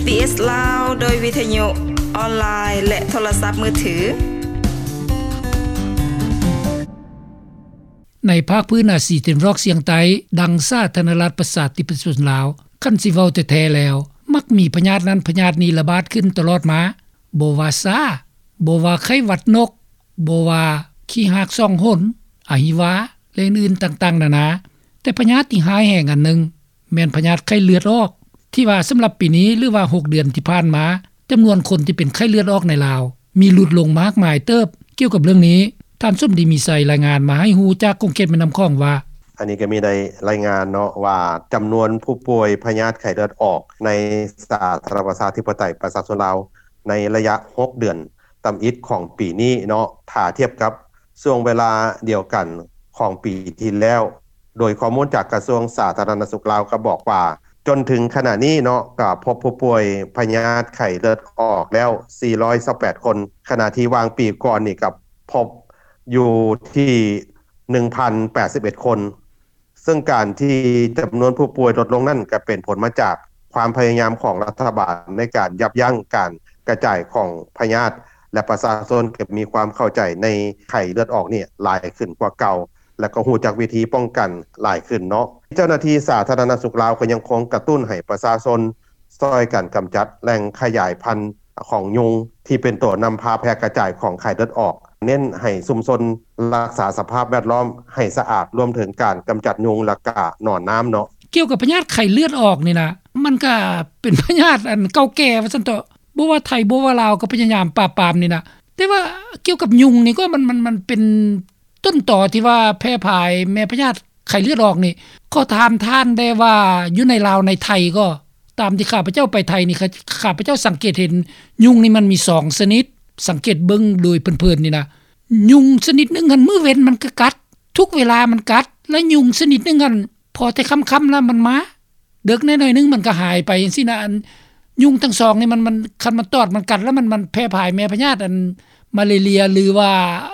ບີເອສ ລາວ ໂດຍວິທະຍຸອອນລາຍ ແລະ ໂທລະສັບມືຖື. ໃນພາກພື້ນອາຊີຕາເວັນອອກສຽງໃຕ້ ດັ່ງສາທາລະນະລັດປະຊາທິປະໄຕປະຊາຊົນລາວ, ຄັນຊິເວົ້າແທ້ໆແລ້ວ ມັກມີພະຍາດນັ້ນພະຍາດນີ້ລະບາດຂຶ້ນຕະຫຼອດມາ, ບໍ່ວ່າຊາ, ບໍ່ວ່າໄຂ້ຫວັດນົກ, ບໍ່ວ່າຂີ້ຮາກສອງຫົນ, ອະຫິວາ ແລະ ອື່ນໆຕ່າງໆນານາ. ແຕ່ພະຍາດທີ່ຮ້າຍແຮງອັນໜຶ່ງ ແມ່ນພະຍາດໄຂ້ເລືອດອອກ ທີ່ວ່າສຳລັບປີນີ້ ຫຼືວ່າຫົກເດືອນທີ່ຜ່ານມາ ຈຳນວນຄົນທີ່ເປັນໄຂ້ເລືອດອອກໃນລາວ ມີຫຼຸດລົງມາກມາຍເຕີບ. ກ່ຽວກັບເລື່ອງນີ້ ທ່ານສົມດີ ມີໄຊ ລາຍງານມາໃຫ້ຮູ້ຈາກຂົງເຂດແມ່ນ້ຳຂອງວ່າ: ອັນນີ້ກໍມີໄດ້ລາຍງານເນາະວ່າ ຈຳນວນຜູ້ປ່ວຍພະຍາດໄຂ້ເລືອດອອກໃນສາທາລະນະລັດປະຊາທິປະໄຕປະຊາຊົນລາວ ໃນໄລຍະຫົກເດືອນ ຕຳອິດຂອງປີນີ້ເນາະ ຖ້າທຽບກັບຊ່ວງເວລາດຽວກັນຂອງປີທີ່ແລ້ວ, ໂດຍຂໍ້ມູນຈາກກະຊວງສາທາລະນະສຸກລາວກໍບອກວ່າ ຈົນເຖິງຂະນະນີ້ເນາະ ກໍພົບຜູ້ປ່ວຍພະຍາດໄຂ້ເລືອດອອກແລ້ວສີ່ຮ້ອຍຊາວແປດຄົນ, ຂະນະທີ່ວ່າງປີກ່ອນນີ້ກໍພົບຢູ່ທີ່ໜຶ່ງພັນແປດສິບເອັດຄົນ. ເຊິ່ງການທີ່ຈຳນວນຜູ້ປ່ວຍລົດລົງນັ້ນ ກໍເປັນຜົນມາຈາກຄວາມພະຍາຍາມຂອງລັດຖະບານໃນການຢັບຢັ້ງການກະຈາຍຂອງພະຍາດ ແລະ ປະຊາຊົນກໍມີຄວາມເຂົ້າໃຈໃນໄຂ້ເລືອດອອກນີ້ຫຼາຍຂຶ້ນກວ່າເກົ່າ ແລະ ກໍຮູ້ຈັກວິທີປ້ອງກັນຫຼາຍຂຶ້ນເນາະ. ເຈົ້າໜ້າທີ່ສາທາລະນະສຸກລາວກໍຍັງຄົງກະຕຸ້ນໃຫ້ປະຊາຊົນ ຊ່ອຍກັນກຳຈັດແຫຼ່ງຂະຫຍາຍພັນຂອງຍຸງ ທີ່ເປັນຕົວນຳພາແຜ່ກະຈາຍຂອງໄຂ້ເລືອດອອກ, ເນັ້ນໃຫ້ຊຸມຊົນລັກສາສະພາບແວດລ້ອມໃຫ້ສະອາດ, ລວມເຖິງການກຳຈັດຍຸງ ແລະ ກະໜອນນ້ຳເນາະ. ກ່ຽວກັບພະຍາດໄຂ້ເລືອດອອກນີ້ນະ ມັນກະເປັນພະຍາດອັນເກົ່າແກ່ວ່າຊັ້ນເຖາະ, ບໍ່ວ່າໄທ ບໍ່ວ່າລາວ ກໍພະຍາຍາມປາບປາມນີ້ນະ. ແຕ່ວ່າກ່ຽວກັບຍຸງນີ້ກໍມັນ ມັນ ມັນເປັນ ຕົ້ນຕໍທີ່ວ່າແຜ່ພາຍແມ່ພະຍາດໄຂ້ເລືອດອອກນີ້ ຂໍຖາມທ່ານແດ່ວ່າ ຢູ່ໃນລາວໃນໄທກໍ ຕາມທີ່ຂ້າພະເຈົ້າໄປໄທນີ້ ຂ້າ ຂ້າພະເຈົ້າສັງເກດເຫັນຍຸງນີ້ມັນມີສອງຊະນິດ, ສັງເກດເບິ່ງໂດຍເພີນໆນີ້ນະ. ຍຸງຊະນິດໜຶ່ງຫັ້ນ ມື້ເວັນມັນກໍກັດ, ທຸກເວລາມັນກັດ, ແລະ ຍຸງຊະນິດໜຶ່ງຫັ້ນ ພໍແຕ່ຄ່ຳໆແລ້ວມັນມາ, ເດິກແດ່ໜ້ອຍໜຶ່ງມັນກໍຫາຍໄປຈັ່ງຊີ້ນະ. ອັນຍຸງທັງສອງນີ້ມັນ ມັນ ຄັນມັນຕອດມັນກັດແລ້ວ ມັນ ມັນແຜ່ພາຍແມ່ພະຍາດອັນມາເລເລຍ ຫຼືວ່າ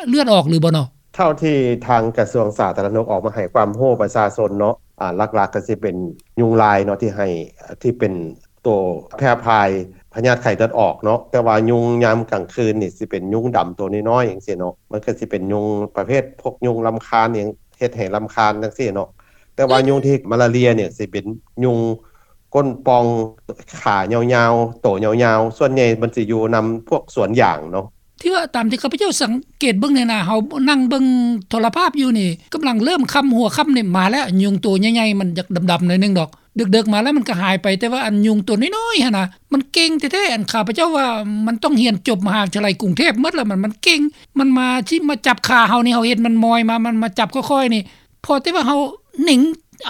ເລືອດອອກຫຼືບໍ່ເນາະ? ເທົ່າທີ່ທາງກະຊວງສາທາລະນະສຸກອອກມາໃຫ້ຄວາມຮູ້ປະຊາຊົນເນາະ, ອາ ຫຼັກໆກໍຊິເປັນຍຸງລາຍເນາະ ທີ່ໃຫ້ ທີ່ເປັນໂຕແຜ່ພາຍພະຍາດໄຂ້ເລືອດອອກເນາະ. ແຕ່ວ່າຍຸງຍາມກາງຄືນນີ້ຊິເປັນຍຸງດຳໂຕນ້ອຍໆ ຈັ່ງຊີ້ເນາະ, ມັນກໍຊິເປັນຍຸງປະເພດພວກຍຸງລຳຄານຫຍັງ ເຮັດໃຫ້ລຳຄານຈັ່ງຊີ້ເນາະ. ແຕ່ວ່າຍຸງທີ່ມາລາເຣຍນີ້ຊິເປັນຍຸງກົ້ນປ່ອງ ຂາຍາວໆ ໂຕຍາວໆ, ສ່ວນໃຫຍ່ມັນຊິຢູ່ນຳພວກສວນຢາງເນາະ. ທີ່ວ່າຕາມທີ່ຂ້າພະເຈົ້າສັງເກດເບິ່ງນີ້ນະ, ເຮົານັ່ງເບິ່ງໂທລະພາບຢູ່ນີ້ ກຳລັງເລີ່ມຄ່ຳ ຫົວຄ່ຳນີ້ມາແລ້ວ, ຍຸງໂຕໃຫຍ່ໆ ມັນຢາກດຳໆໜ້ອຍໜຶ່ງດອກ, ເດິກໆມາແລ້ວມັນກໍຫາຍໄປ. ແຕ່ວ່າອັນຍຸງໂຕນ້ອຍໆຫັ້ນນະ ມັນເກັ່ງແທ້ໆ. ອັນຂ້າພະເຈົ້າວ່າມັນຕ້ອງຮຽນຈົບມະຫາວິທະຍາໄລກຸງເທບໝົດລະ, ມັນ ມັນເກັ່ງ, ມັນມາ ຊິມາຈັບຂາເຮົານີ້, ເຮົາເຮັດມັນມອຍມາ, ມັນມາຈັບຄ່ອຍໆນີ້, ພໍແຕ່ວ່າເຮົາເໜັງ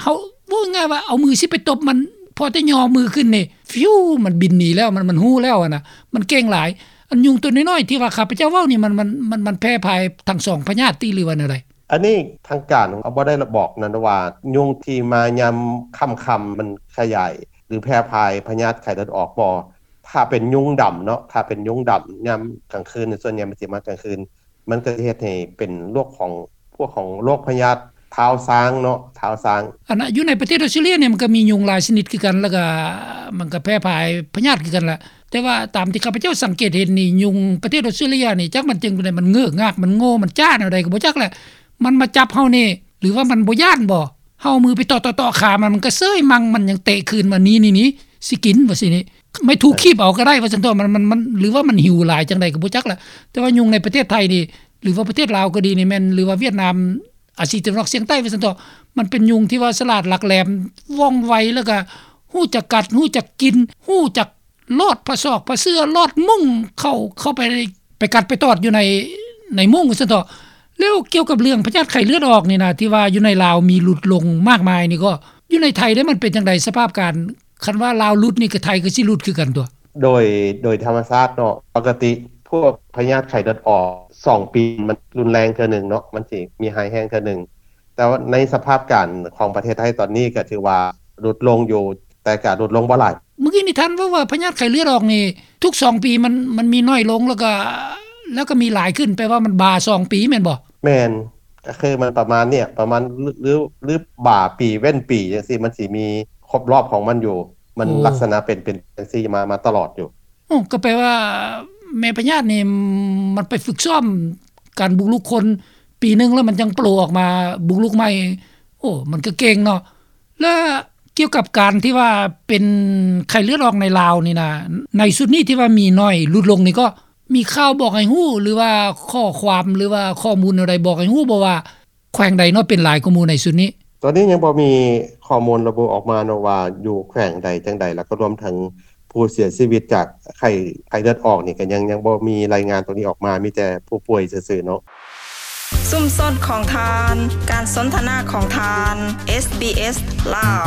ເຮົາ ເວົ້າງ່າຍວ່າເອົາມືຊິໄປຕົບມັນ, ພໍແຕ່ຍໍມືຂຶ້ນນີ້ ຟິວ ມັນບິນໜີແລ້ວ, ມັນ ມັນຮູ້ແລ້ວຫັ້ນນະ, ມັນເກັ່ງຫຼາຍ. ອັນຍຸງໂຕນ້ອຍໆທີ່ວ່າຂ້າພະເຈົ້າເວົ້ານີ້ ມັນ ມັນ ມັນ ມັນແຜ່ພາຍທັງສອງພະຍາດຕິ ຫຼືວ່າແນວໃດ? ອັນນີ້ທາງການເຮົາບໍ່ໄດ້ບອກນັ້ນວ່າ ຍຸງທີ່ມາຍາມຄ່ຳໆ ມັນຂະຫຍາຍ ຫຼື ແຜ່ພາຍພະຍາດໄຂ້ເລືອດອອກບໍ່. ຖ້າເປັນຍຸງດຳເນາະ, ຖ້າເປັນຍຸງດຳຍາມກາງຄືນ ສ່ວນໃຫຍ່ມັນຊິມາກາງຄືນ, ມັນກໍເຮັດໃຫ້ເປັນໂລກຂອງ ພວກຂອງໂລກພະຍາດທ້າວຊ້າງເນາະ, ທ້າວຊ້າງ. ອັນນະ ຢູ່ໃນປະເທດອອສເຕຣເລຍນີ້ ມັນກໍມີຍຸງຫຼາຍຊະນິດຄືກັນ, ແລ້ວກໍມັນກໍແຜ່ພາຍພະຍາດຄືກັນລະ. ແຕ່ວ່າຕາມທີ່ຂ້າພະເຈົ້າສັງເກດເຫັນນີ້ ຍຸງປະເທດອອສເຕຣເລຍນີ້ ຈັກມັນຈັ່ງໃດ, ມັນເງີກງາກ, ມັນໂງ່, ມັນຈ້າແນວໃດກໍບໍ່ຈັກແຫຼະ. ມັນມາຈັບເຮົານີ້ ຫຼືວ່າມັນບໍ່ຢ້ານບໍ່? ເຮົາເອົາມືໄປເຕາະໆຂາມັນ, ມັນກໍເຊີຍມັ່ງ, ມັນຍັງເຕະຄືນມາ, ນີ້ໆ ຊິກິນ ວ່າຊີ້ນີ້. ໄມ້ຖູກຄີບເອົາກໍໄດ້ວ່າຊັ້ນເຖາະ, ມັນ ມັນ ມັນ ຫຼືວ່າມັນຫິວຫຼາຍຈັ່ງໃດກໍບໍ່ຈັກລະ. ແຕ່ວ່າຍຸງໃນປະເທດໄທນີ້ ຫຼືວ່າປະເທດລາວກໍດີນີ້ແມ່ນ ຫຼືວ່າຫວຽດນາມ ອາຊີຕາເວັນອອກສຽງໃຕ້ວ່າຊັ້ນເຖາະ, ມັນເປັນຍຸງທີ່ວ່າສະຫຼາດຫຼັກແຫຼມ ວ່ອງໄວ ແລ້ວກໍຮູ້ຈັກກັດ ຮູ້ຈັກກິນ ຮູ້ຈັກລອດຜ້າຊອກຜ້າເສື້ອ ລອດມຸ້ງເຂົ້າ ເຂົ້າໄປ ໄປກັດໄປຕອດຢູ່ໃນ ໃນມຸ້ງວ່າຊັ້ນເຖາະ. ແລ້ວກ່ຽວກັບເລື່ອງພະຍາດໄຂ້ເລືອດອອກນີ້ນະ ທີ່ວ່າຢູ່ໃນລາວມີຫຼຸດລົງມາກມາຍນີ້ ກໍຢູ່ໃນໄທເດ້ ມັນເປັນຈັ່ງໃດສະພາບການ? ຄັນວ່າລາວຫຼຸດນີ້ ກໍໄທກໍຊິຫຼຸດຄືກັນຕົວະ? ໂດຍ ໂດຍທຳມະຊາດເນາະ ປົກກະຕິພວກພະຍາດໄຂ້ເລືອດອອກ ສອງປີມັນຮຸນແຮງເທື່ອໜຶ່ງເນາະ, ມັນຊິມີຮ້າຍແຮງເທື່ອໜຶ່ງ. ແຕ່ວ່າໃນສະພາບການຂອງປະເທດໄທຕອນນີ້ ກໍຖືວ່າຫຼຸດລົງຢູ່, ແຕ່ກໍຫຼຸດລົງບໍ່ຫຼາຍ. ເມື່ອກີ້ນີ້ທ່ານເວົ້າວ່າພະຍາດໄຂ້ເລືອດອອກນີ້ ທຸກສອງປີມັນ ມັນມີໜ້ອຍລົງ ແລ້ວກໍ ແລ້ວກໍມີຫຼາຍຂຶ້ນ, ແປວ່າມັນບາສອງປີແມ່ນບໍ່? ແມ່ນ, ກໍຄືມັນປະມານນີ້ ປະມານ ຫຼື ຫຼື ຫຼືບາປີເວັ້ນປີຈັ່ງຊີ້ ມັນຊິມີຄົບລອບຂອງມັນຢູ່. ມັນ ໂອ້ ລັກສະນະເປັນ ເປັນຈັ່ງຊີ້ມາ ມາຕະຫຼອດຢູ່. ໂອ້ ກໍແປວ່າແມ່ພະຍາດນີ້ ມັນໄປຝຶກຊ້ອມການບຸກລຸກຄົນ ປີໜຶ່ງແລ້ວມັນຈັ່ງໂປອອກມາບຸກລຸກໃໝ່. ໂອ້ ມັນກໍເກັ່ງເນາະ. ແລະ ກ່ຽວກັບການທີ່ວ່າເປັນໄຂ້ເລືອດອອກໃນລາວນີ້ນະ ໃນຊຸດນີ້ທີ່ວ່າມີໜ້ອຍ ຫຼຸດລົງນີ້ ກໍມີຂ່າວບອກໃຫ້ຮູ້ ຫຼືວ່າຂໍ້ຄວາມ ຫຼືວ່າຂໍ້ມູນແນວໃດບອກໃຫ້ຮູ້ບໍ່ວ່າ ແຂວງໃດເນາະເປັນຫຼາຍກວ່າໝູ່ໃນຊຸດນີ້? ຕອນນີ້ຍັງບໍ່ມີຂໍ້ມູນລະບຸອອກມາເນາະວ່າຢູ່ແຂວງໃດຈັ່ງໃດ ແລ້ວກໍລວມເຖິງຜູ້ເສຍຊີວິດຈາກໄຂ້ ໄຂ້ເລືອດອອກນີ້ ກໍຍັງ ຍັງບໍ່ມີລາຍງານຕົງນີ້ອອກມາ ມີແຕ່ຜູ້ປ່ວຍຊື່ໆເນາະ. ຊຸມຊົນຂອງທ່ານ ການສົນທະນາຂອງທ່ານ ເອສບີເອສ ລາວ.